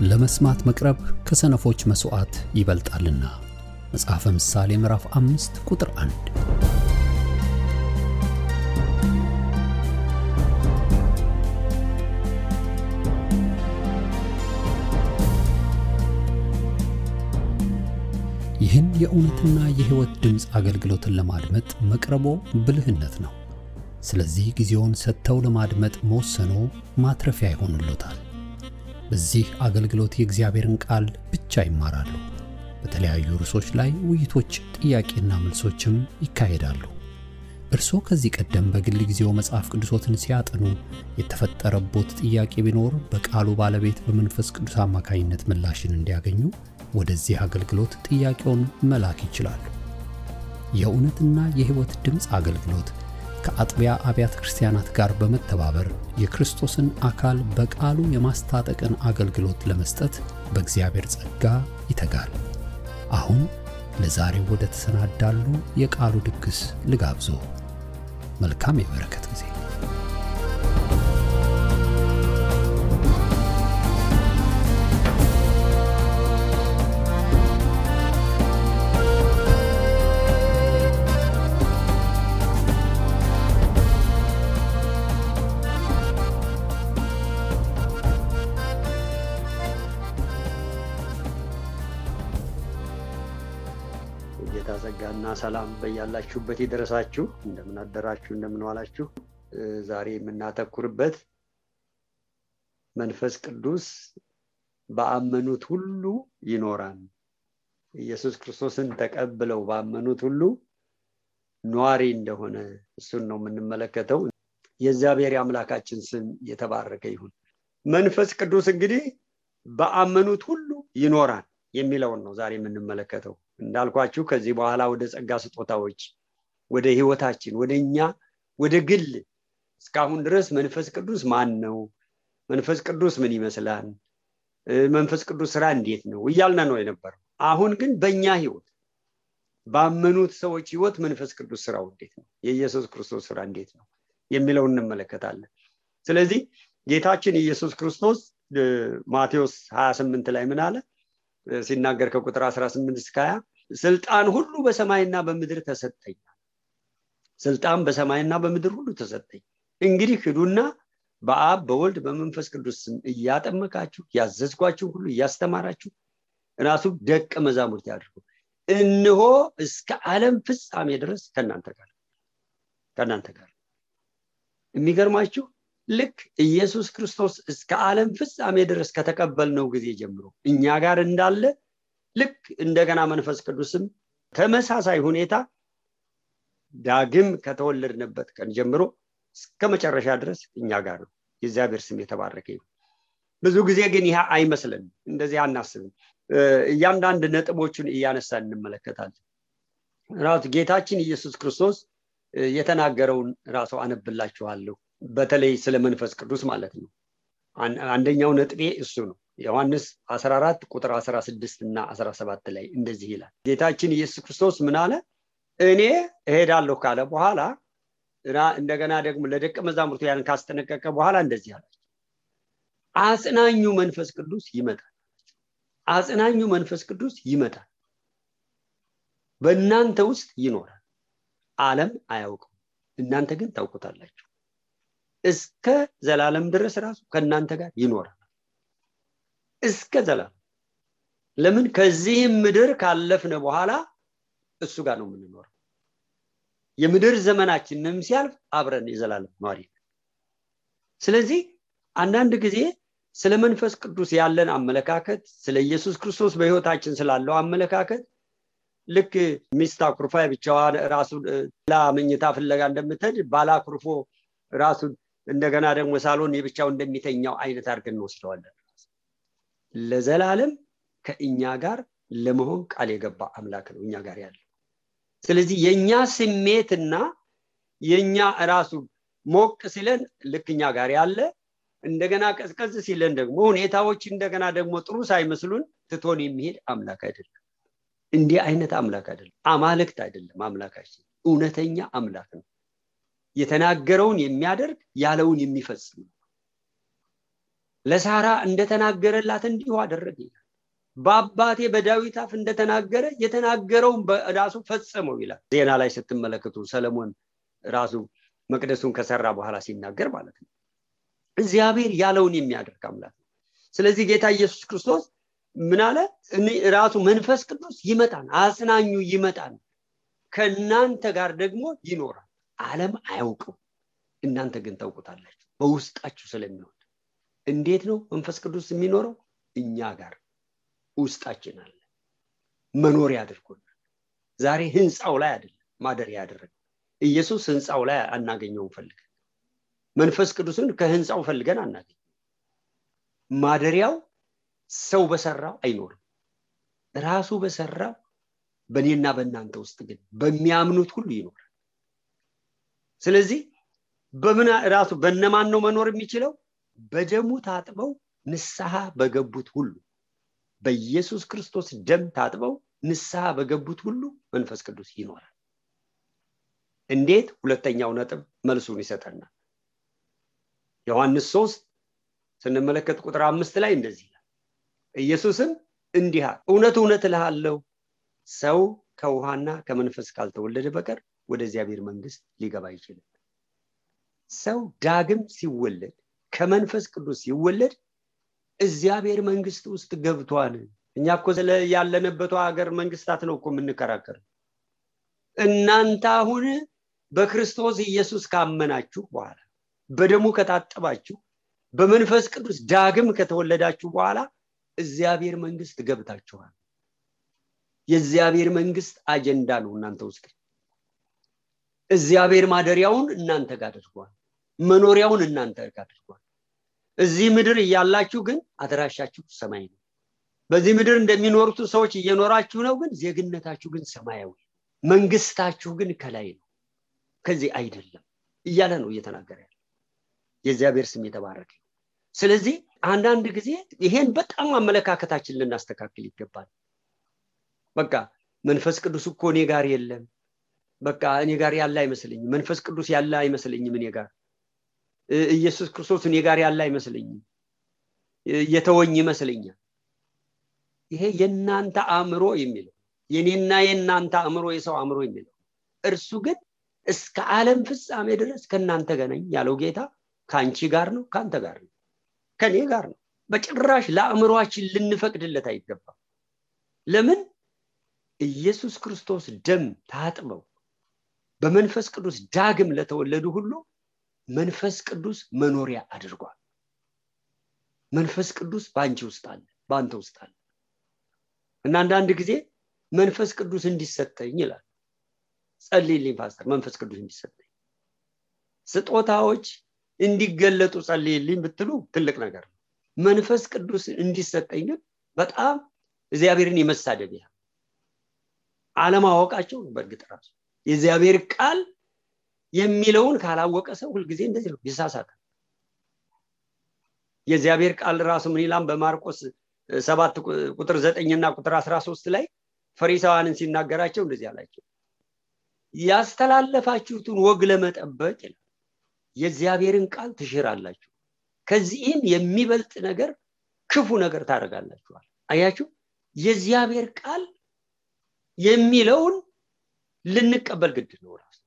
ለመስማት መቅረብ ከሰነፎች መስዋዕት ይበልጣልና። መጽሐፈ ምሳሌ ምዕራፍ 5 ቁጥር 1። ይህን የእውነትና የሕይወት ድምጽ አገልግሎትን ለማድመጥ መቅረቦ ብልህነት ነው። ስለዚህ ጊዜውን ሰጥተው ለማድመጥ መወሰኖ ማትረፊያ ይሆንልዎታል። በዚህ አገልግሎት የእግዚአብሔርን ቃል ብቻ ይማራሉ። በተለያዩ ርዕሶች ላይ ውይይቶች፣ ጥያቄና መልሶችም ይካሄዳሉ። እርስዎ ከዚህ ቀደም በግል ጊዜው መጽሐፍ ቅዱሶትን ሲያጠኑ የተፈጠረቦት ጥያቄ ቢኖር በቃሉ ባለቤት በመንፈስ ቅዱስ አማካኝነት ምላሽን እንዲያገኙ ወደዚህ አገልግሎት ጥያቄውን መላክ ይችላሉ። የእውነትና የሕይወት ድምጽ አገልግሎት ከአጥቢያ አብያተ ክርስቲያናት ጋር በመተባበር የክርስቶስን አካል በቃሉ የማስታጠቅን አገልግሎት ለመስጠት በእግዚአብሔር ጸጋ ይተጋል። አሁን ለዛሬው ወደ ተሰናዳሉ የቃሉ ድግስ ልጋብዞ። መልካም የበረከት ጊዜ። ጸጋና ሰላም በያላችሁበት ይድረሳችሁ። እንደምን አደራችሁ፣ እንደምን ዋላችሁ። ዛሬ የምናተኩርበት መንፈስ ቅዱስ በአመኑት ሁሉ ይኖራል። ኢየሱስ ክርስቶስን ተቀብለው ባመኑት ሁሉ ኗሪ እንደሆነ እሱን ነው የምንመለከተው። የእግዚአብሔር አምላካችን ስም የተባረከ ይሁን። መንፈስ ቅዱስ እንግዲህ በአመኑት ሁሉ ይኖራል የሚለውን ነው ዛሬ የምንመለከተው። እንዳልኳችሁ ከዚህ በኋላ ወደ ጸጋ ስጦታዎች፣ ወደ ሕይወታችን፣ ወደኛ ወደ ግል እስካሁን ድረስ መንፈስ ቅዱስ ማን ነው፣ መንፈስ ቅዱስ ምን ይመስላል፣ መንፈስ ቅዱስ ስራ እንዴት ነው እያልን ነው የነበረው። አሁን ግን በእኛ ሕይወት ባመኑት ሰዎች ሕይወት መንፈስ ቅዱስ ስራው እንዴት ነው፣ የኢየሱስ ክርስቶስ ስራ እንዴት ነው የሚለውን እንመለከታለን። ስለዚህ ጌታችን ኢየሱስ ክርስቶስ ማቴዎስ 28 ላይ ምን አለ ሲናገር ከቁጥር 18 እስከ 20 ስልጣን ሁሉ በሰማይና በምድር ተሰጠኝ። ስልጣን በሰማይና በምድር ሁሉ ተሰጠኝ። እንግዲህ ሂዱና በአብ በወልድ በመንፈስ ቅዱስ ስም እያጠመቃችሁ ያዘዝኳችሁ ሁሉ እያስተማራችሁ ራሱ ደቀ መዛሙርት ያድርጉ። እነሆ እስከ ዓለም ፍጻሜ ድረስ ከናንተ ጋር። የሚገርማችሁ ልክ ኢየሱስ ክርስቶስ እስከ ዓለም ፍጻሜ ድረስ ከተቀበልነው ጊዜ ጀምሮ እኛ ጋር እንዳለ ልክ እንደገና መንፈስ ቅዱስም ተመሳሳይ ሁኔታ ዳግም ከተወለድንበት ቀን ጀምሮ እስከ መጨረሻ ድረስ እኛ ጋር ነው። የእግዚአብሔር ስም የተባረከ ይሁን። ብዙ ጊዜ ግን ይሄ አይመስልንም፣ እንደዚህ አናስብም። እያንዳንዱ ነጥቦችን እያነሳን እንመለከታለን። ራሱ ጌታችን ኢየሱስ ክርስቶስ የተናገረውን ራሱ አነብላችኋለሁ። በተለይ ስለ መንፈስ ቅዱስ ማለት ነው። አንደኛው ነጥቤ እሱ ነው። ዮሐንስ 14 ቁጥር 16 እና 17 ላይ እንደዚህ ይላል። ጌታችን ኢየሱስ ክርስቶስ ምን አለ? እኔ እሄዳለሁ ካለ በኋላ እንደገና ደግሞ ለደቀ መዛሙርቱ ያን ካስጠነቀቀ በኋላ እንደዚህ አላቸው፣ አጽናኙ መንፈስ ቅዱስ ይመጣል። አጽናኙ መንፈስ ቅዱስ ይመጣል፣ በእናንተ ውስጥ ይኖራል። ዓለም አያውቀው፣ እናንተ ግን ታውቁታላችሁ። እስከ ዘላለም ድረስ ራሱ ከናንተ ጋር ይኖራል። እስከ ዘላለም። ለምን? ከዚህ ምድር ካለፍነ በኋላ እሱ ጋር ነው የምንኖረው። የምድር ዘመናችንም ሲያልፍ አብረን የዘላለም ኗሪ። ስለዚህ አንዳንድ ጊዜ ስለ መንፈስ ቅዱስ ያለን አመለካከት፣ ስለ ኢየሱስ ክርስቶስ በሕይወታችን ስላለው አመለካከት ልክ ሚስት አኩርፋ ብቻዋን ራሱን ለመኝታ ፍለጋ እንደምትሄድ ባላ አኩርፎ ራሱን እንደገና ደግሞ ሳሎን የብቻው እንደሚተኛው አይነት አድርገን እንወስደዋለን። ለዘላለም ከእኛ ጋር ለመሆን ቃል የገባ አምላክ ነው እኛ ጋር ያለው። ስለዚህ የኛ ስሜትና የኛ ራሱ ሞቅ ሲለን ልክ እኛ ጋር ያለ፣ እንደገና ቀዝቀዝ ሲለን ደግሞ ሁኔታዎች እንደገና ደግሞ ጥሩ ሳይመስሉን ትቶን የሚሄድ አምላክ አይደለም። እንዲህ አይነት አምላክ አይደለም። አማልክት አይደለም አምላካችን፣ እውነተኛ አምላክ ነው። የተናገረውን የሚያደርግ ያለውን የሚፈጽም ለሳራ እንደተናገረላት እንዲሁ አደረገ ይላል። በአባቴ በዳዊት አፍ እንደተናገረ የተናገረውን በራሱ ፈጸመው ይላል። ዜና ላይ ስትመለከቱ ሰለሞን ራሱ መቅደሱን ከሰራ በኋላ ሲናገር ማለት ነው። እግዚአብሔር ያለውን የሚያደርግ አምላክ ነው። ስለዚህ ጌታ ኢየሱስ ክርስቶስ ምን አለ? ራሱ መንፈስ ቅዱስ ይመጣል፣ አጽናኙ ይመጣል፣ ከእናንተ ጋር ደግሞ ይኖራል። ዓለም አያውቀው፣ እናንተ ግን ታውቁታላችሁ፣ በውስጣችሁ ስለሚሆን። እንዴት ነው መንፈስ ቅዱስ የሚኖረው? እኛ ጋር ውስጣችን አለ፣ መኖሪያ አድርጎናል። ዛሬ ህንጻው ላይ አይደለም ማደሪያ ያደረገው። ኢየሱስ ህንጻው ላይ አናገኘው ፈልገን፣ መንፈስ ቅዱስን ከህንጻው ፈልገን አናገኘው። ማደሪያው ሰው በሰራው አይኖርም፣ ራሱ በሰራው በእኔና በእናንተ ውስጥ ግን በሚያምኑት ሁሉ ይኖራል። ስለዚህ በምን ራሱ በእነማን ነው መኖር የሚችለው? በደሙ ታጥበው ንስሐ በገቡት ሁሉ፣ በኢየሱስ ክርስቶስ ደም ታጥበው ንስሐ በገቡት ሁሉ መንፈስ ቅዱስ ይኖራል። እንዴት? ሁለተኛው ነጥብ መልሱን ይሰጠናል። ዮሐንስ 3 ስንመለከት ቁጥር 5 ላይ እንደዚህ ይላል። ኢየሱስም እንዲህ አለ፣ እውነት እውነት እልሃለሁ ሰው ከውሃና ከመንፈስ ካልተወለደ በቀር ወደ እግዚአብሔር መንግስት ሊገባ አይችልም። ሰው ዳግም ሲወለድ ከመንፈስ ቅዱስ ሲወለድ እግዚአብሔር መንግስት ውስጥ ገብቷል። እኛ እኮ ያለንበት ሀገር መንግስታት ነው እኮ የምንከራከር። እናንተ አሁን በክርስቶስ ኢየሱስ ካመናችሁ በኋላ በደሙ ከታጠባችሁ በመንፈስ ቅዱስ ዳግም ከተወለዳችሁ በኋላ እግዚአብሔር መንግስት ገብታችኋል። የእግዚአብሔር መንግስት አጀንዳ ነው እናንተ ውስጥ። እግዚአብሔር ማደሪያውን እናንተ ጋር አድርጓል፣ መኖሪያውን እናንተ ጋር አድርጓል። እዚህ ምድር እያላችሁ ግን አድራሻችሁ ሰማይ ነው። በዚህ ምድር እንደሚኖሩት ሰዎች እየኖራችሁ ነው፣ ግን ዜግነታችሁ ግን ሰማያዊ፣ መንግስታችሁ ግን ከላይ ነው፣ ከዚህ አይደለም እያለ ነው እየተናገረ ያለው። የእግዚአብሔር ስም የተባረከ። ስለዚህ አንዳንድ ጊዜ ይሄን በጣም አመለካከታችን ልናስተካክል ይገባል። በቃ መንፈስ ቅዱስ እኮ እኔ ጋር የለም፣ በቃ እኔ ጋር ያለ አይመስልኝም፣ መንፈስ ቅዱስ ያለ አይመስልኝም፣ እኔ ጋር ኢየሱስ ክርስቶስ እኔ ጋር ያለ አይመስልኝም፣ የተወኝ ይመስልኛል። ይሄ የናንተ አእምሮ የሚለው፣ የኔና የናንተ አእምሮ፣ የሰው አእምሮ የሚለው። እርሱ ግን እስከ ዓለም ፍጻሜ ድረስ ከናንተ ጋር ነኝ ያለው ጌታ ካንቺ ጋር ነው፣ ካንተ ጋር ነው፣ ከኔ ጋር ነው። በጭራሽ ለአእምሮአችን ልንፈቅድለት አይገባም። ለምን? ኢየሱስ ክርስቶስ ደም ታጥበው በመንፈስ ቅዱስ ዳግም ለተወለዱ ሁሉ መንፈስ ቅዱስ መኖሪያ አድርጓል። መንፈስ ቅዱስ ባንቺ ውስጥ አለ፣ ባንተ ውስጥ አለ። እና አንዳንድ ጊዜ መንፈስ ቅዱስ እንዲሰጠኝ ይላል። ጸልይልኝ ፓስተር፣ መንፈስ ቅዱስ እንዲሰጠኝ፣ ስጦታዎች እንዲገለጡ ጸልይልኝ ብትሉ ትልቅ ነገር ነው። መንፈስ ቅዱስ እንዲሰጠኝ ግን በጣም እግዚአብሔርን የመሳደቢያ አለማወቃቸው ነው። በእርግጥ ራሱ የእግዚአብሔር ቃል የሚለውን ካላወቀ ሰው ሁሉ ጊዜ እንደዚህ ነው፣ ይሳሳታል። የእግዚአብሔር ቃል ራሱ ምን ይላል? በማርቆስ 7 ቁጥር 9 እና ቁጥር 13 ላይ ፈሪሳውያንን ሲናገራቸው እንደዚህ አላቸው፣ ያስተላለፋችሁትን ወግ ለመጠበቅ ይላል የእግዚአብሔርን ቃል ትሽራላችሁ፣ ከዚህም የሚበልጥ ነገር ክፉ ነገር ታደርጋላችኋል። አያችሁ፣ የእግዚአብሔር ቃል የሚለውን ልንቀበል ግድ ነው፣ ራሱ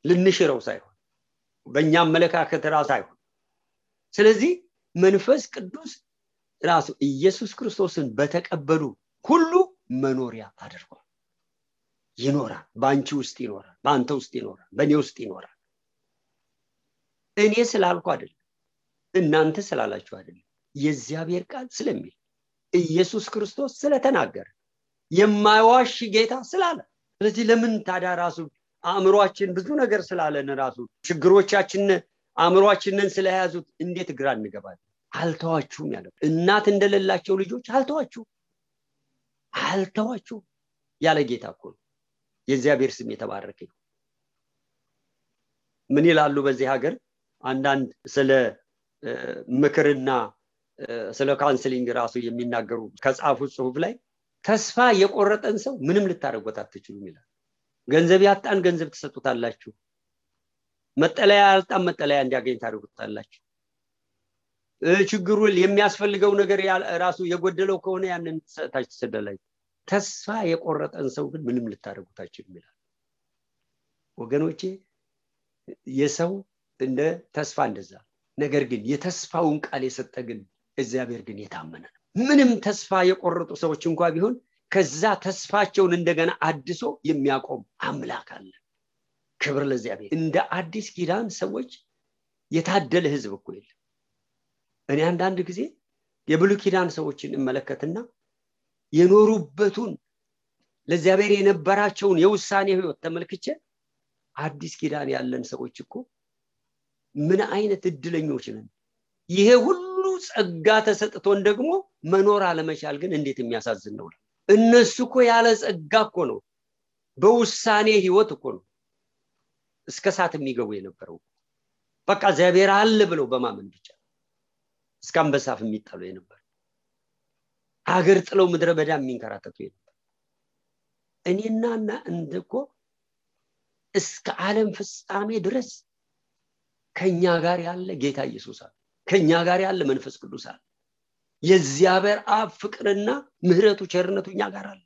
ልንሽረው ሳይሆን በእኛ አመለካከት ራሱ ሳይሆን። ስለዚህ መንፈስ ቅዱስ ራሱ ኢየሱስ ክርስቶስን በተቀበሉ ሁሉ መኖሪያ አድርጓል። ይኖራል፣ ባንቺ ውስጥ ይኖራል፣ ባንተ ውስጥ ይኖራል፣ በእኔ ውስጥ ይኖራል። እኔ ስላልኩ አይደለም፣ እናንተ ስላላችሁ አይደለም፣ የእግዚአብሔር ቃል ስለሚል ኢየሱስ ክርስቶስ ስለተናገረ የማይዋሽ ጌታ ስላለ። ስለዚህ ለምን ታዲያ ራሱ አእምሮአችን ብዙ ነገር ስላለን ራሱ ችግሮቻችን አእምሮአችንን ስለያዙት እንዴት ግራ እንገባለን? አልተዋችሁም ያለው እናት እንደሌላቸው ልጆች አልተዋችሁም ያለ ጌታ እኮ ነው። የእግዚአብሔር ስም የተባረከ ይሁን። ምን ይላሉ በዚህ ሀገር አንዳንድ ስለ ምክርና ስለ ካውንስሊንግ ራሱ የሚናገሩ ከጻፉት ጽሁፍ ላይ ተስፋ የቆረጠን ሰው ምንም ልታረጉት አትችሉም ይላል። ገንዘብ ያጣን ገንዘብ ትሰጡታላችሁ፣ መጠለያ ያጣን መጠለያ እንዲያገኝ ታደርጉታላችሁ። ችግሩ የሚያስፈልገው ነገር ራሱ የጎደለው ከሆነ ያንን ታች ተሰደላይ ተስፋ የቆረጠን ሰው ግን ምንም ልታረጉት አይችልም ይላል። ወገኖቼ የሰው እንደ ተስፋ እንደዛ ነገር ግን የተስፋውን ቃል የሰጠ ግን እግዚአብሔር ግን የታመነ ነው። ምንም ተስፋ የቆረጡ ሰዎች እንኳን ቢሆን ከዛ ተስፋቸውን እንደገና አድሶ የሚያቆም አምላክ አለ። ክብር ለእግዚአብሔር። እንደ አዲስ ኪዳን ሰዎች የታደለ ህዝብ እኮ የለም። እኔ አንዳንድ ጊዜ የብሉይ ኪዳን ሰዎችን እመለከትና የኖሩበቱን ለእግዚአብሔር የነበራቸውን የውሳኔ ህይወት ተመልክቼ አዲስ ኪዳን ያለን ሰዎች እኮ ምን አይነት እድለኞች ነን። ይሄ ሁሉ ጸጋ ተሰጥቶን ደግሞ መኖር አለመቻል ግን እንዴት የሚያሳዝን ነው። እነሱ እኮ ያለ ጸጋ እኮ ነው በውሳኔ ህይወት እኮ ነው እስከ ሰዓት የሚገቡ የነበረው። በቃ እግዚአብሔር አለ ብለው በማመን ብቻ እስከ አንበሳፍ የሚጣሉ የነበረ አገር ጥለው ምድረ በዳ የሚንከራተቱ የነበረ እኔናና እንደኮ እስከ ዓለም ፍጻሜ ድረስ ከኛ ጋር ያለ ጌታ ኢየሱስ አለ። ከኛ ጋር ያለ መንፈስ ቅዱስ አለ። የእግዚአብሔር አብ ፍቅርና ምህረቱ ቸርነቱ እኛ ጋር አለ።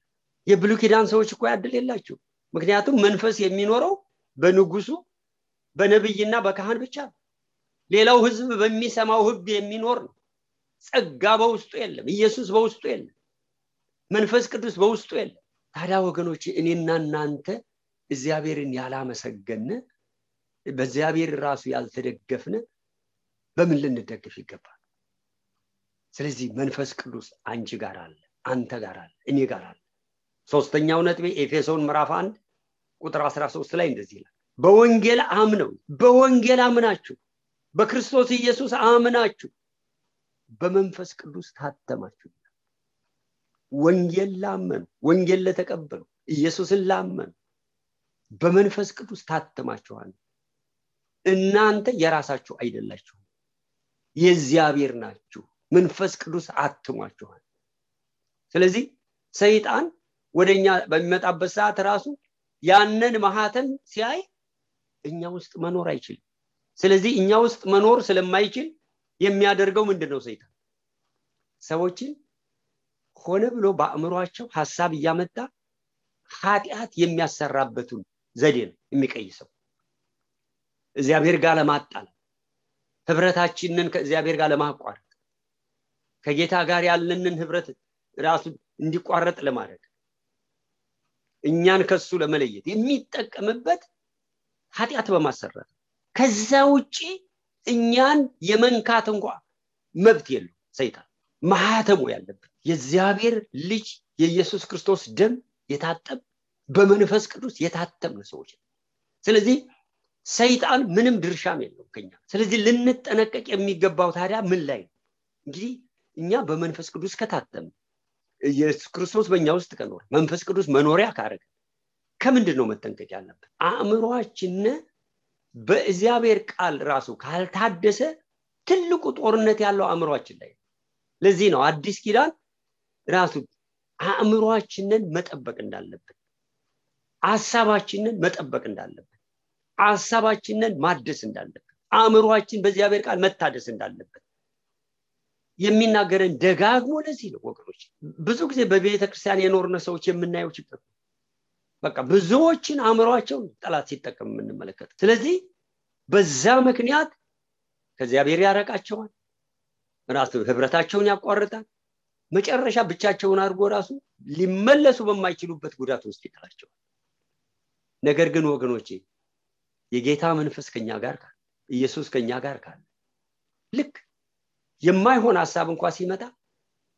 የብሉይ ኪዳን ሰዎች እኮ ያድል የላቸው። ምክንያቱም መንፈስ የሚኖረው በንጉሱ በነብይና በካህን ብቻ ነው። ሌላው ህዝብ በሚሰማው ህግ የሚኖር ነው። ጸጋ በውስጡ የለም። ኢየሱስ በውስጡ የለም። መንፈስ ቅዱስ በውስጡ የለም። ታዲያ ወገኖች እኔና እናንተ እግዚአብሔርን ያላመሰገነ በእግዚአብሔር ራሱ ያልተደገፍነ በምን ልንደግፍ ይገባል? ስለዚህ መንፈስ ቅዱስ አንቺ ጋር አለ፣ አንተ ጋር አለ፣ እኔ ጋር አለ። ሶስተኛው ነጥቤ ኤፌሶን ምዕራፍ 1 ቁጥር 13 ላይ እንደዚህ ይላል፣ በወንጌል አምናችሁ በክርስቶስ ኢየሱስ አምናችሁ በመንፈስ ቅዱስ ታተማችሁ። ወንጌል ላመኑ፣ ወንጌል ለተቀበሉ፣ ኢየሱስን ላመኑ በመንፈስ ቅዱስ ታተማችኋል። እናንተ የራሳችሁ አይደላችሁ፣ የእግዚአብሔር ናችሁ። መንፈስ ቅዱስ አትሟችኋል። ስለዚህ ሰይጣን ወደኛ በሚመጣበት ሰዓት ራሱ ያንን ማህተም ሲያይ እኛ ውስጥ መኖር አይችልም። ስለዚህ እኛ ውስጥ መኖር ስለማይችል የሚያደርገው ምንድነው? ሰይጣን ሰዎችን ሆነ ብሎ በአእምሮአቸው ሐሳብ እያመጣ ኃጢአት የሚያሰራበቱን ዘዴ ነው የሚቀይሰው። እግዚአብሔር ጋር ለማጣል፣ ህብረታችንን ከእግዚአብሔር ጋር ለማቋረጥ፣ ከጌታ ጋር ያለንን ህብረት ራሱ እንዲቋረጥ ለማድረግ፣ እኛን ከሱ ለመለየት የሚጠቀምበት ኃጢአት በማሰራት ከዛ ውጪ እኛን የመንካት እንኳን መብት የለው። ሰይጣን ማህተሙ ያለበት የእግዚአብሔር ልጅ የኢየሱስ ክርስቶስ ደም የታጠብ በመንፈስ ቅዱስ የታተምነ ሰዎች። ስለዚህ ሰይጣን ምንም ድርሻም የለው ከኛ። ስለዚህ ልንጠነቀቅ የሚገባው ታዲያ ምን ላይ ነው? እንግዲህ እኛ በመንፈስ ቅዱስ ከታተም ኢየሱስ ክርስቶስ በእኛ ውስጥ ከኖረ መንፈስ ቅዱስ መኖሪያ ካረገ ከምንድነው መጠንቀቅ ያለበት? አእምሮአችን በእግዚአብሔር ቃል ራሱ ካልታደሰ ትልቁ ጦርነት ያለው አእምሮአችን ላይ። ለዚህ ነው አዲስ ኪዳን ራሱ አእምሮአችንን መጠበቅ እንዳለበት፣ ሐሳባችንን መጠበቅ እንዳለበት፣ ሐሳባችንን ማደስ እንዳለበት፣ አእምሮአችን በእግዚአብሔር ቃል መታደስ እንዳለበት የሚናገረን ደጋግሞ ለዚህ ነው ወገኖች። ብዙ ጊዜ በቤተ ክርስቲያን የኖርነ ሰዎች የምናየው ችግር በቃ ብዙዎችን አእምሮአቸው ጠላት ሲጠቀም የምንመለከት። ስለዚህ በዛ ምክንያት ከእግዚአብሔር ያረቃቸዋል፣ ራሱ ህብረታቸውን ያቋርጣል፣ መጨረሻ ብቻቸውን አድርጎ ራሱ ሊመለሱ በማይችሉበት ጉዳት ውስጥ ይጥላቸዋል። ነገር ግን ወገኖቼ የጌታ መንፈስ ከኛ ጋር ካለ፣ ኢየሱስ ከኛ ጋር ካለ፣ ልክ የማይሆን ሐሳብ እንኳን ሲመጣ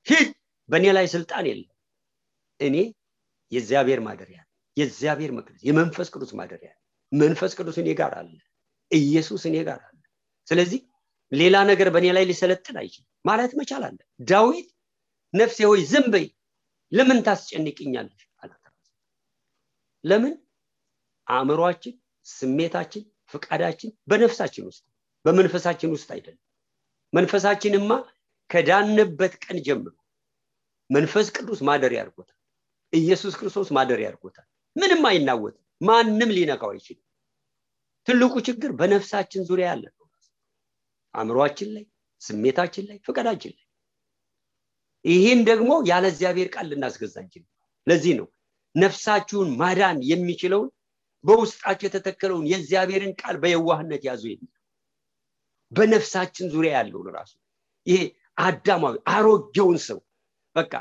ሂድ በእኔ ላይ ስልጣን የለም፣ እኔ የእግዚአብሔር ማደሪያ፣ የእግዚአብሔር መቅደስ፣ የመንፈስ ቅዱስ ማደሪያ፣ መንፈስ ቅዱስ እኔ ጋር አለ፣ ኢየሱስ እኔ ጋር አለ። ስለዚህ ሌላ ነገር በእኔ ላይ ሊሰለጥን አይችልም ማለት መቻል አለ። ዳዊት ነፍሴ ሆይ ዝም በይ ለምን ታስጨንቅኛለሽ አላት። ለምን? አእምሮአችን፣ ስሜታችን፣ ፍቃዳችን በነፍሳችን ውስጥ በመንፈሳችን ውስጥ አይደለም። መንፈሳችንማ ከዳንበት ቀን ጀምሮ መንፈስ ቅዱስ ማደሪያ አድርጎታል። ኢየሱስ ክርስቶስ ማደሪያ አድርጎታል። ምንም አይናወጥም፣ ማንም ሊነካው አይችልም። ትልቁ ችግር በነፍሳችን ዙሪያ ያለ ነው። አእምሮአችን ላይ፣ ስሜታችን ላይ ፍቃዳችን ላይ ይሄን ደግሞ ያለ እግዚአብሔር ቃል ልናስገዛ እንችላለን ለዚህ ነው ነፍሳችሁን ማዳን የሚችለው በውስጣችሁ የተተከለውን የእግዚአብሔርን ቃል በየዋህነት ያዙ የሚል በነፍሳችን ዙሪያ ያለው ራሱ ይሄ አዳማዊ አሮጌውን ሰው በቃ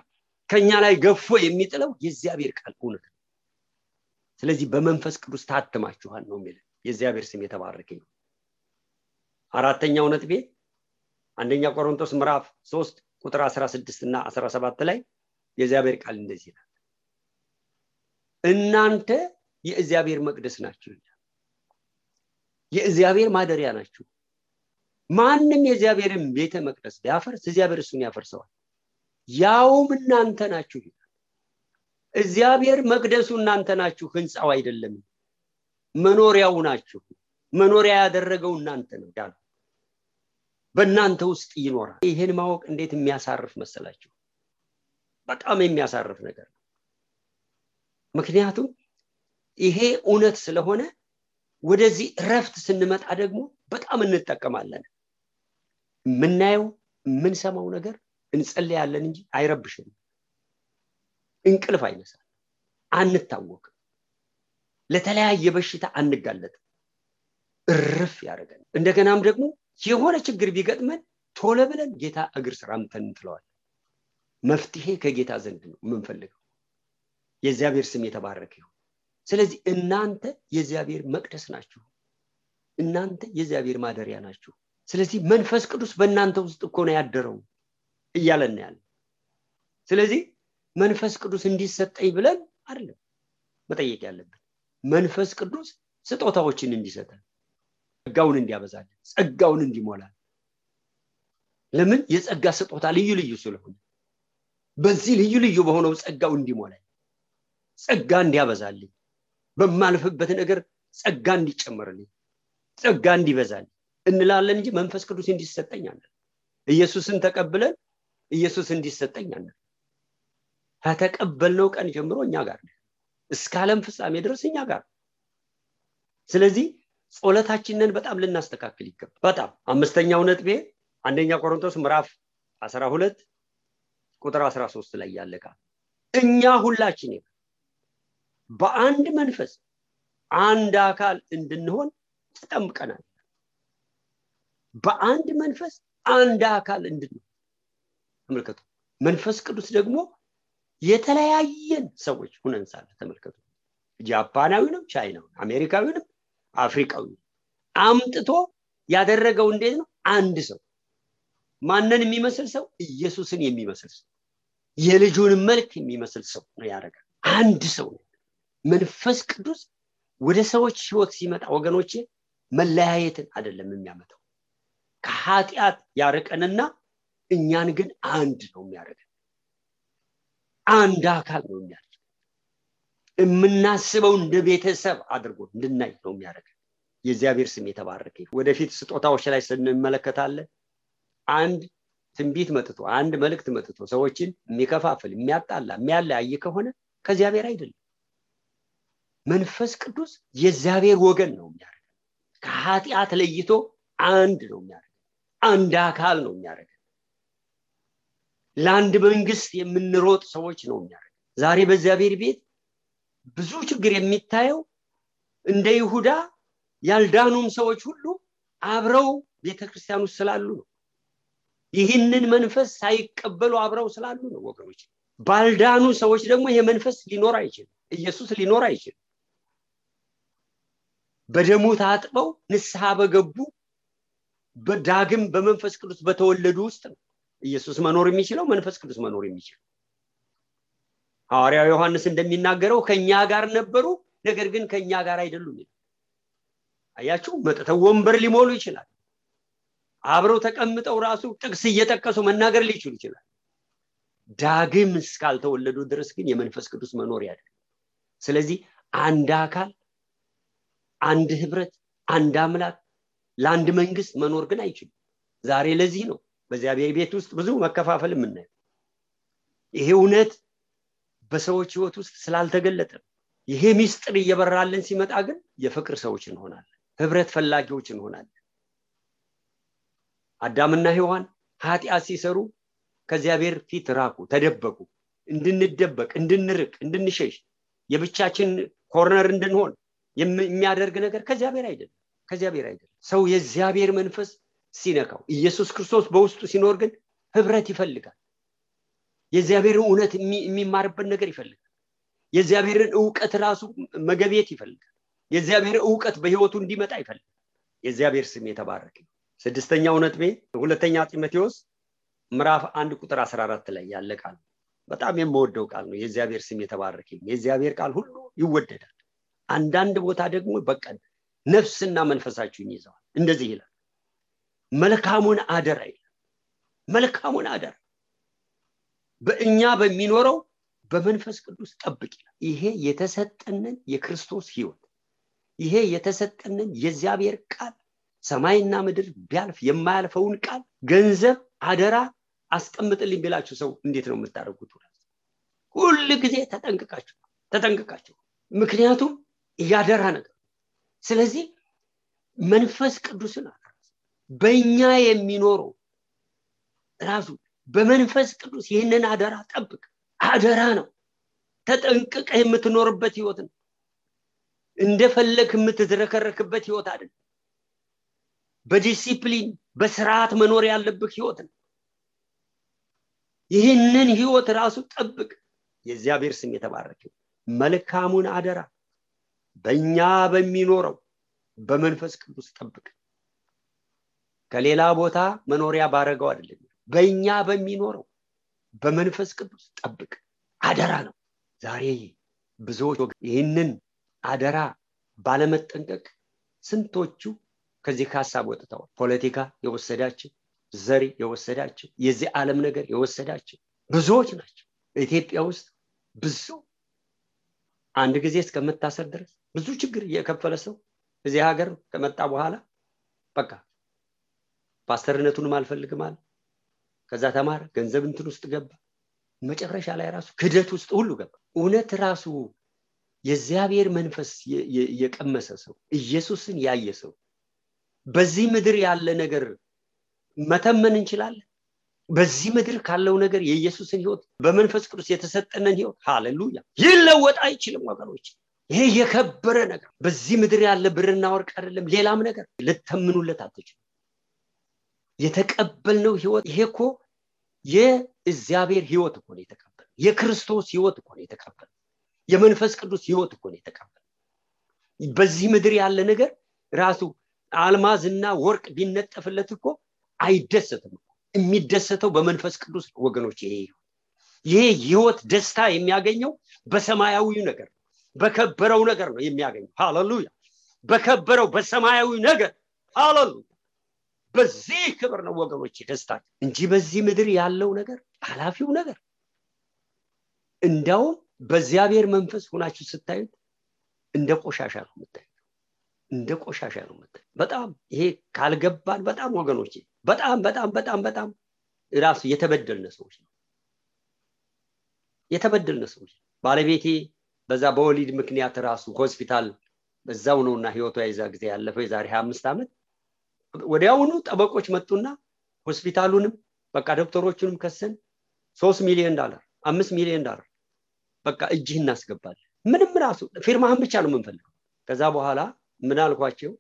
ከኛ ላይ ገፎ የሚጥለው የእግዚአብሔር ቃል እውነት ነው ስለዚህ በመንፈስ ቅዱስ ታትማችኋል ነው የሚለው የእግዚአብሔር ስም የተባረከ ይሁን አራተኛው ነጥቤ አንደኛ ቆሮንቶስ ምዕራፍ 3 ቁጥር 16 እና 17 ላይ የእግዚአብሔር ቃል እንደዚህ ይላል እናንተ የእግዚአብሔር መቅደስ ናችሁ የእግዚአብሔር ማደሪያ ናችሁ ማንንም የእግዚአብሔርን ቤተ መቅደስ ቢያፈርስ እግዚአብሔር እሱን ያፈርሰዋል ያውም እናንተ ናችሁ እግዚአብሔር መቅደሱ እናንተ ናችሁ ህንጻው አይደለም መኖሪያው ናችሁ መኖሪያ ያደረገው እናንተ ነው ዳን በእናንተ ውስጥ ይኖራል ይሄን ማወቅ እንዴት የሚያሳርፍ መሰላችሁ በጣም የሚያሳርፍ ነገር ነው ምክንያቱም ይሄ እውነት ስለሆነ ወደዚህ ረፍት ስንመጣ ደግሞ በጣም እንጠቀማለን ምናየው ምን ሰማው ነገር እንጸልያለን እንጂ አይረብሽም እንቅልፍ አይነሳም አንታወቅ ለተለያየ በሽታ አንጋለጥ እርፍ ያደርገን እንደገናም ደግሞ የሆነ ችግር ቢገጥመን ቶሎ ብለን ጌታ እግር ስር አምተን እንጥለዋለን መፍትሄ ከጌታ ዘንድ ነው የምንፈልገው የእግዚአብሔር ስም የተባረከ ይሁን ስለዚህ እናንተ የእግዚአብሔር መቅደስ ናችሁ እናንተ የእግዚአብሔር ማደሪያ ናችሁ ስለዚህ መንፈስ ቅዱስ በእናንተ ውስጥ እኮ ነው ያደረው እያለን ያለ ስለዚህ መንፈስ ቅዱስ እንዲሰጠኝ ብለን አይደለም መጠየቅ ያለብን መንፈስ ቅዱስ ስጦታዎችን እንዲሰጠን ጸጋውን እንዲያበዛልን ጸጋውን እንዲሞላል ለምን የጸጋ ስጦታ ልዩ ልዩ ስለሆነ በዚህ ልዩ ልዩ በሆነው ጸጋው እንዲሞላል ጸጋ እንዲያበዛልኝ በማልፈበት ነገር ጸጋ እንዲጨመርልኝ ጸጋ እንዲበዛልኝ እንላለን እንጂ መንፈስ ቅዱስ እንዲሰጠኝ አይደለም ኢየሱስን ተቀበለን ኢየሱስ እንዲሰጠኝ አይደለም ከተቀበልነው ቀን ጀምሮ እኛ ጋር ነው እስከ ዓለም ፍጻሜ ድረስ እኛ ጋር ስለዚህ ጸሎታችንን በጣም ልናስተካክል ይገባል በጣም አምስተኛው ነጥቤ አንደኛ ቆሮንቶስ ምዕራፍ 12 ቁጥር 13 ላይ ያለካ እኛ ሁላችን በአንድ መንፈስ አንድ አካል እንድንሆን ተጠምቀናል በአንድ መንፈስ አንድ አካል እንድንሆን ተመልከቱ መንፈስ ቅዱስ ደግሞ የተለያየን ሰዎች ሆነን ሳለ ተመልከቱ ጃፓናዊ ነው ቻይናው አሜሪካዊ ነው አፍሪካዊ አምጥቶ ያደረገው እንዴት ነው አንድ ሰው ማንንም የሚመስል ሰው ኢየሱስን የሚመስል ሰው የልጁን መልክ የሚመስል ሰው ነው ያደረገው አንድ ሰው መንፈስ ቅዱስ ወደ ሰዎች ህይወት ሲመጣ ወገኖቼ መለያየትን አይደለም የሚያመጣው ከኃጢአት ያርቀንና እኛን ግን አንድ ነው የሚያደርገን አንድ አካል ነው የሚያደርገን የምናስበው እንደ ቤተሰብ አድርጎ እንድናይ ነው የሚያደርገን የእግዚአብሔር ስም የተባረከ ይሁን ወደፊት ስጦታዎች ላይ ስንመለከታለን አንድ ትንቢት መጥቶ አንድ መልእክት መጥቶ ሰዎችን የሚከፋፍል የሚያጣላ የሚያለያይ ከሆነ ከእግዚአብሔር አይደለም መንፈስ ቅዱስ የእግዚአብሔር ወገን ነው የሚያደርገን ከኃጢአት ለይቶ አንድ ነው የሚያደርገን አንድ አካል ነው የሚያደርገን ለአንድ መንግስት የምንሮጥ ሰዎች ነው የሚያደርገን ዛሬ በእግዚአብሔር ቤት ብዙ ችግር የሚታየው እንደ ይሁዳ ያልዳኑም ሰዎች ሁሉ አብረው ቤተክርስቲያን ውስጥ ስላሉ ነው ይህንን መንፈስ ሳይቀበሉ አብረው ስላሉ ነው ወገኖች ባልዳኑ ሰዎች ደግሞ ይሄ መንፈስ ሊኖር አይችልም ኢየሱስ ሊኖር አይችልም በደሙ ታጥበው ንስሐ በገቡ በዳግም በመንፈስ ቅዱስ በተወለዱ ውስጥ ነው ኢየሱስ መኖር የሚችለው መንፈስ ቅዱስ መኖር የሚችለው ሐዋርያው ዮሐንስ እንደሚናገረው ከኛ ጋር ነበሩ ነገር ግን ከኛ ጋር አይደሉም አያችሁ መጥተው ወንበር ሊሞሉ ይችላል አብረው ተቀምጠው ራሱ ጥቅስ እየተቀሱ መናገር ሊችሉ ይችላል ዳግም እስካልተወለዱ ድረስ ግን የመንፈስ ቅዱስ መኖር ያለ ስለዚህ አንድ አካል አንድ ህብረት አንድ አምላክ ለአንድ መንግስት መኖር ግን አይችልም ዛሬ ለዚህ ነው በእግዚአብሔር ቤት ውስጥ ብዙ መከፋፈል የምናየው ይሄ እውነት በሰዎች ህይወት ውስጥ ስላልተገለጠ ይሄ ሚስጥር እየበራልን ሲመጣ ግን የፍቅር ሰዎች እንሆናለን ህብረት ፈላጊዎች እንሆናለን አዳምና ሔዋን ኃጢአት ሲሰሩ ከእግዚአብሔር ፊት ራቁ፣ ተደበቁ። እንድንደበቅ፣ እንድንርቅ፣ እንድንሸሽ የብቻችን ኮርነር እንድንሆን የሚያደርግ ነገር ከእግዚአብሔር አይደለም። ሰው የእግዚአብሔር መንፈስ ሲነካው ኢየሱስ ክርስቶስ በውስጡ ሲኖር ግን ህብረት ይፈልጋል። የእግዚአብሔርን እውነት የሚማርበት ነገር ይፈልጋል። የእግዚአብሔርን ዕውቀት ራሱ መገቤት ይፈልጋል። የእግዚአብሔር ዕውቀት በህይወቱ እንዲመጣ ይፈልጋል። የእግዚአብሔር ስም የተባረከ። ስድስተኛው ነጥቤ ሁለተኛ ጢሞቴዎስ ምዕራፍ 1 ቁጥር 14 ላይ ያለ ቃል በጣም የምወደው ቃል ነው። የእግዚአብሔር ስም የተባረከ። የእግዚአብሔር ቃል ሁሉ ይወደዳል። አንዳንድ ቦታ ደግሞ በቃ ነፍስና መንፈሳችሁን ይዘዋል። እንደዚህ ይላል፣ መልካሙን አደራ ይላል። መልካሙን አደራ በእኛ በሚኖረው በመንፈስ ቅዱስ ጠብቅ ይላል። ይሄ የተሰጠንን የክርስቶስ ህይወት፣ ይሄ የተሰጠንን የእግዚአብሔር ቃል፣ ሰማይና ምድር ቢያልፍ የማያልፈውን ቃል ገንዘብ አደራ አስቀምጥልኝ ቢላችሁ ሰው እንዴት ነው የምታደርጉት? ሁሉ ጊዜ ተጠንቅቃችሁ። ምክንያቱም ያደራ ነገር። ስለዚህ መንፈስ ቅዱስን በእኛ የሚኖረው ራሱ በመንፈስ ቅዱስ ይህንን አደራ ጠብቅ። አደራ ነው። ተጠንቅቀህ የምትኖርበት ህይወት ነው። እንደፈለክ የምትዝረከረክበት ህይወት አይደለም። በዲሲፕሊን በስርዓት መኖር ያለበት ህይወት ነው። ይህንን ህይወት ራሱ ጠብቅ። የእግዚአብሔር ስም የተባረከ። መልካሙን አደራ በእኛ በሚኖረው በመንፈስ ቅዱስ ጠብቅ። ከሌላ ቦታ መኖሪያ ባረገው አይደለም፣ በእኛ በሚኖረው በመንፈስ ቅዱስ ጠብቅ። አደራ ነው። ዛሬ ብዙዎች ይህንን አደራ ባለመጠንቀቅ ስንቶቹ ከዚህ ሐሳብ ወጥተዋል። ፖለቲካ የወሰዳቸው፣ ዘር የወሰዳቸው፣ የዚህ ዓለም ነገር የወሰዳቸው ብዙዎች ናቸው። ኢትዮጵያ ውስጥ ብዙ አንድ ጊዜ እስከመታሰር ድረስ ብዙ ችግር የከፈለ ሰው እዚህ ሀገር ከመጣ በኋላ በቃ ፓስተርነቱንም አልፈልግም አለ። ከዛ ተማረ፣ ገንዘብ እንትን ውስጥ ገባ፣ መጨረሻ ላይ ራሱ ክደት ውስጥ ሁሉ ገባ። እውነት ራሱ የእግዚአብሔር መንፈስ የቀመሰ ሰው፣ ኢየሱስን ያየ ሰው በዚህ ምድር ያለ ነገር መተመን እንችላለን። በዚህ ምድር ካለው ነገር የኢየሱስን ህይወት በመንፈስ ቅዱስ የተሰጠነን ህይወት ሃሌሉያ ይለወጥ አይችልም ወገኖች። ይሄ የከበረ ነገር በዚህ ምድር ያለ ብርና ወርቅ አይደለም፣ ሌላም ነገር ልተምኑለት አትችሉ። የተቀበልነው ህይወት ይሄ እኮ የእግዚአብሔር ህይወት እኮ ነው የተቀበልነው። የክርስቶስ ህይወት እኮ ነው የተቀበልነው። የመንፈስ ቅዱስ ህይወት እኮ ነው የተቀበልነው። በዚህ ምድር ያለ ነገር ራሱ አልማዝና ወርቅ ቢነጠፍለት እኮ አይደሰትም። የሚደሰተው በመንፈስ ቅዱስ ወገኖች። ይሄ ህይወት ደስታ የሚያገኘው በሰማያዊው ነገር፣ በከበረው ነገር ነው የሚያገኘው። ሃሌሉያ! በከበረው በሰማያዊ ነገር ሃሌሉያ! በዚህ ክብር ነው ወገኖች ደስታ እንጂ በዚህ ምድር ያለው ነገር ኃላፊው ነገር እንደው በእግዚአብሔር መንፈስ ሆናችሁ ስታዩት እንደ ቆሻሻ ነው የምታዩት። እንደ ቆሻሻ ነው የምታዩት። በጣም ይሄ ካልገባን በጣም ወገኖች በጣም ራሱ የተበደልነ ሰዎች ነው። የተበደልነ ሰዎች። ባለቤቴ በዛ በወሊድ ምክንያት ራሱ ሆስፒታል በዛው ነውና ህይወቷ ይዛ ጊዜ ያለፈው የዛሬ 25 ዓመት ወዲያውኑ ጠበቆች መጡና ሆስፒታሉንም በቃ ዶክተሮቹንም ከሰን $3 ሚሊዮን $5 ሚሊዮን በቃ እጅህ እናስገባለን። ምንም ራሱ ፊርማህን ብቻ ነው የምንፈልገው። ከዛ በኋላ ምን አልኳቸው፣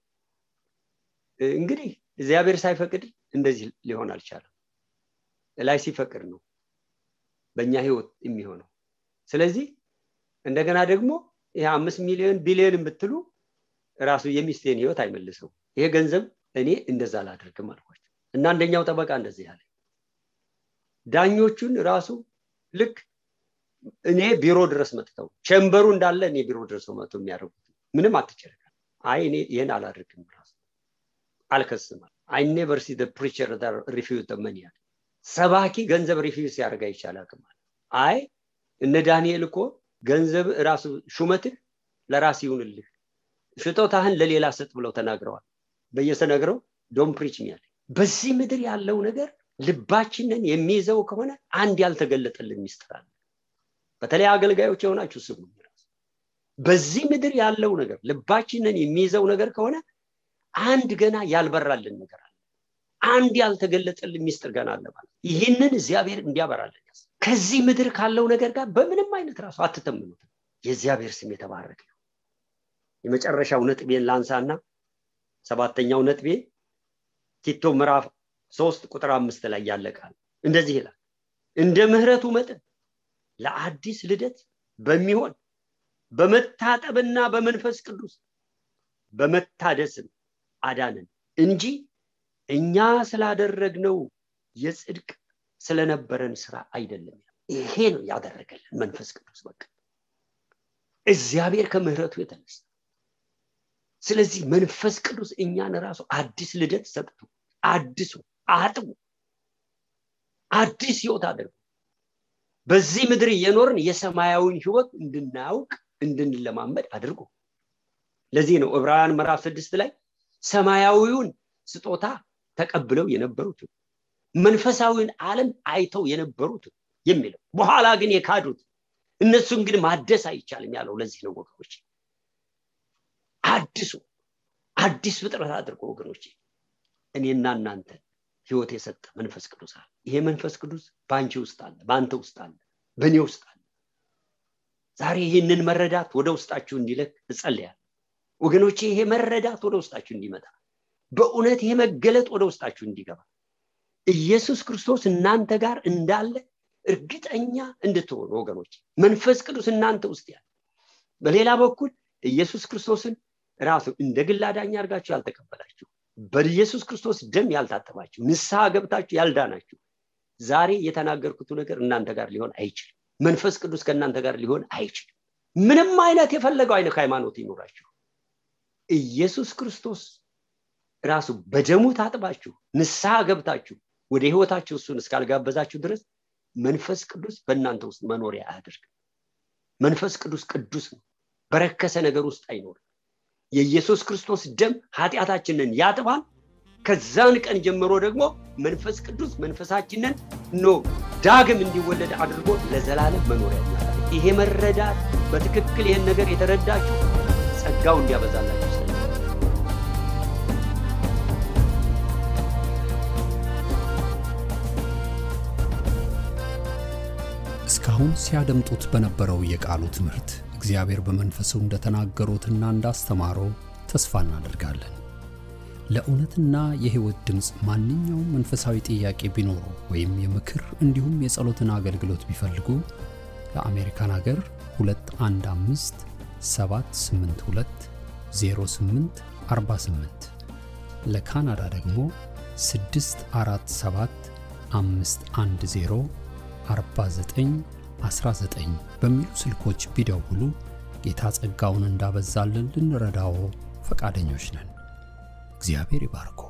እንግዲህ እግዚአብሔር ሳይፈቅድ እንደዚህ ሊሆን አልቻለም። ላይ ሲፈቅድ ነው በእኛ ህይወት የሚሆነው። ስለዚህ እንደገና ደግሞ ይሄ 5 ሚሊዮን ቢሊዮን ብትሉ ራሱ የሚስቴን ህይወት አይመልሰው። ይሄ ገንዘብ እኔ እንደዛ ላድርግም አልኳቸው። እና አንደኛው ጠበቃ እንደዚህ ያለ ዳኞቹን ራሱ ልክ እኔ ቢሮ ድረስ መጥተው ቸምበሩ እንዳለ እኔ ቢሮ ድረስ መጥተው የሚያደርጉት ምንም አትጨረቃ። አይ እኔ ይሄን አላድርግም ራሱ አልከስም። I never see the preacher that refuse the money. ሰባኪ ገንዘብ ሪፊውስ ያደርጋ ይቻላል ማለት አይ እነ ዳንኤል እኮ ገንዘብ ራሱ ሹመትህ ለራስ ይሁንልህ ሽጦታህን ለሌላ ሰጥ ብለው ተናግረዋል። በየሰነግረው ዶንት ፕሪች ሚ ያለ። በዚህ ምድር ያለው ነገር ልባችንን የሚይዘው ከሆነ አንድ ያልተገለጠልን ሚስጥር አለ። በተለይ አገልጋዮች የሆናችሁ ስሙ። በዚህ ምድር ያለው ነገር ልባችንን የሚይዘው ነገር ከሆነ አንድ ገና ያልበራልን ነገር አለ። አንድ ያልተገለጠልን ሚስጥር ገና አለ ማለት ይሄንን እግዚአብሔር እንዲያበራልን ከዚህ ምድር ካለው ነገር ጋር በምንም አይነት ራሱ አትተምኑት የእግዚአብሔር ስም የተባረከ ነው የመጨረሻው ነጥቤን ላንሳና ሰባተኛው ነጥቤ ቲቶ ምዕራፍ 3 ቁጥር 5 ላይ ያለቃል እንደዚህ ይላል እንደ ምህረቱ መጠን ለአዲስ ልደት በሚሆን በመታጠብና በመንፈስ ቅዱስ በመታደስም አዳነን እንጂ እኛ ስላደረግነው የጽድቅ ስለነበረን ስራ አይደለም ይሄ ነው ያደረገልን መንፈስ ቅዱስ በቃ እግዚአብሔር ከምህረቱ የተነሳ ስለዚህ መንፈስ ቅዱስ እኛን ራሱ አዲስ ልደት ሰጥቶ አዲሱ አጥቡ አዲስ ህይወት አድርጎ በዚህ ምድር የኖርን የሰማያዊን ህይወት እንድናውቅ እንድንለማመድ አድርጎ ለዚህ ነው ዕብራውያን ምዕራፍ 6 ላይ ሰማያዊውን ስጦታ ተቀብለው የነበሩት መንፈሳዊውን ዓለም አይተው የነበሩት የሚለው በኋላ ግን የካዱት እነሱን ግን ማደስ አይቻልም ያለው ለዚህ ነው ወገኖች አዲስ ፍጥረት አድርጎ ወገኖች እኔና እናንተ ህይወት የሰጠ መንፈስ ቅዱስ አለ ይሄ መንፈስ ቅዱስ ባንቺ ውስጥ አለ ባንተ ውስጥ አለ በእኔ ውስጥ አለ ዛሬ ይሄንን መረዳት ወደ ውስጣችሁ እንዲለክ እጸልያለሁ ወገኖቼ ይሄ መረዳት ወደ ውስጣችሁ እንዲመጣ በእውነት ይሄ መገለጥ ወደ ውስጣችሁ እንዲገባ ኢየሱስ ክርስቶስ እናንተ ጋር እንዳለ እርግጠኛ እንድትሆኑ ወገኖች መንፈስ ቅዱስ እናንተ ውስጥ ያለ በሌላ በኩል ኢየሱስ ክርስቶስን ራሱ እንደ ግል አዳኝ አድርጋችሁ ያልተቀበላችሁ በኢየሱስ ክርስቶስ ደም ያልታጠባችሁ ንስሐ ገብታችሁ ያልዳናችሁ ዛሬ የተናገርኩት ነገር እናንተ ጋር ሊሆን አይችልም መንፈስ ቅዱስ ከእናንተ ጋር ሊሆን አይችልም ምንም አይነት የፈለገው አይነት ሃይማኖት ይኖራችሁ ኢየሱስ ክርስቶስ ራሱ በደሙ ታጥባችሁ ንስሐ ገብታችሁ ወደ ህይወታችሁ እሱን እስካልጋበዛችሁ ድረስ መንፈስ ቅዱስ በእናንተ ውስጥ መኖሪያ አያደርግ መንፈስ ቅዱስ ነው በረከሰ ነገር ውስጥ አይኖርም የኢየሱስ ክርስቶስ ደም ኃጢያታችንን ያጥባል ከዛን ቀን ጀምሮ ደግሞ መንፈስ ቅዱስ መንፈሳችንን ዳግም እንዲወለድ አድርጎ ለዘላለም መኖሪያ ያደርጋል ይሄ መረዳት በትክክል ይሄን ነገር የተረዳችሁ ጸጋው እንዲያበዛላችሁ እስካሁን ሲያደምጡት በነበረው የቃሉ ትምህርት እግዚአብሔር በመንፈሱ እንደተናገሩትና እንዳስተማረው ተስፋ እናደርጋለን ለእውነትና የህይወት ድምጽ ማንኛውም መንፈሳዊ ጥያቄ ቢኖሩ ወይም የምክር እንዲሁም የጸሎትን አገልግሎት ቢፈልጉ ለአሜሪካን ሀገር 215 782 0848 ለካናዳ ደግሞ 647 510 4919 በሚሉ ስልኮች ቢደውሉ ጌታ ጸጋውን እንዳበዛልን ልንረዳው ፈቃደኞች ነን እግዚአብሔር ይባርኮ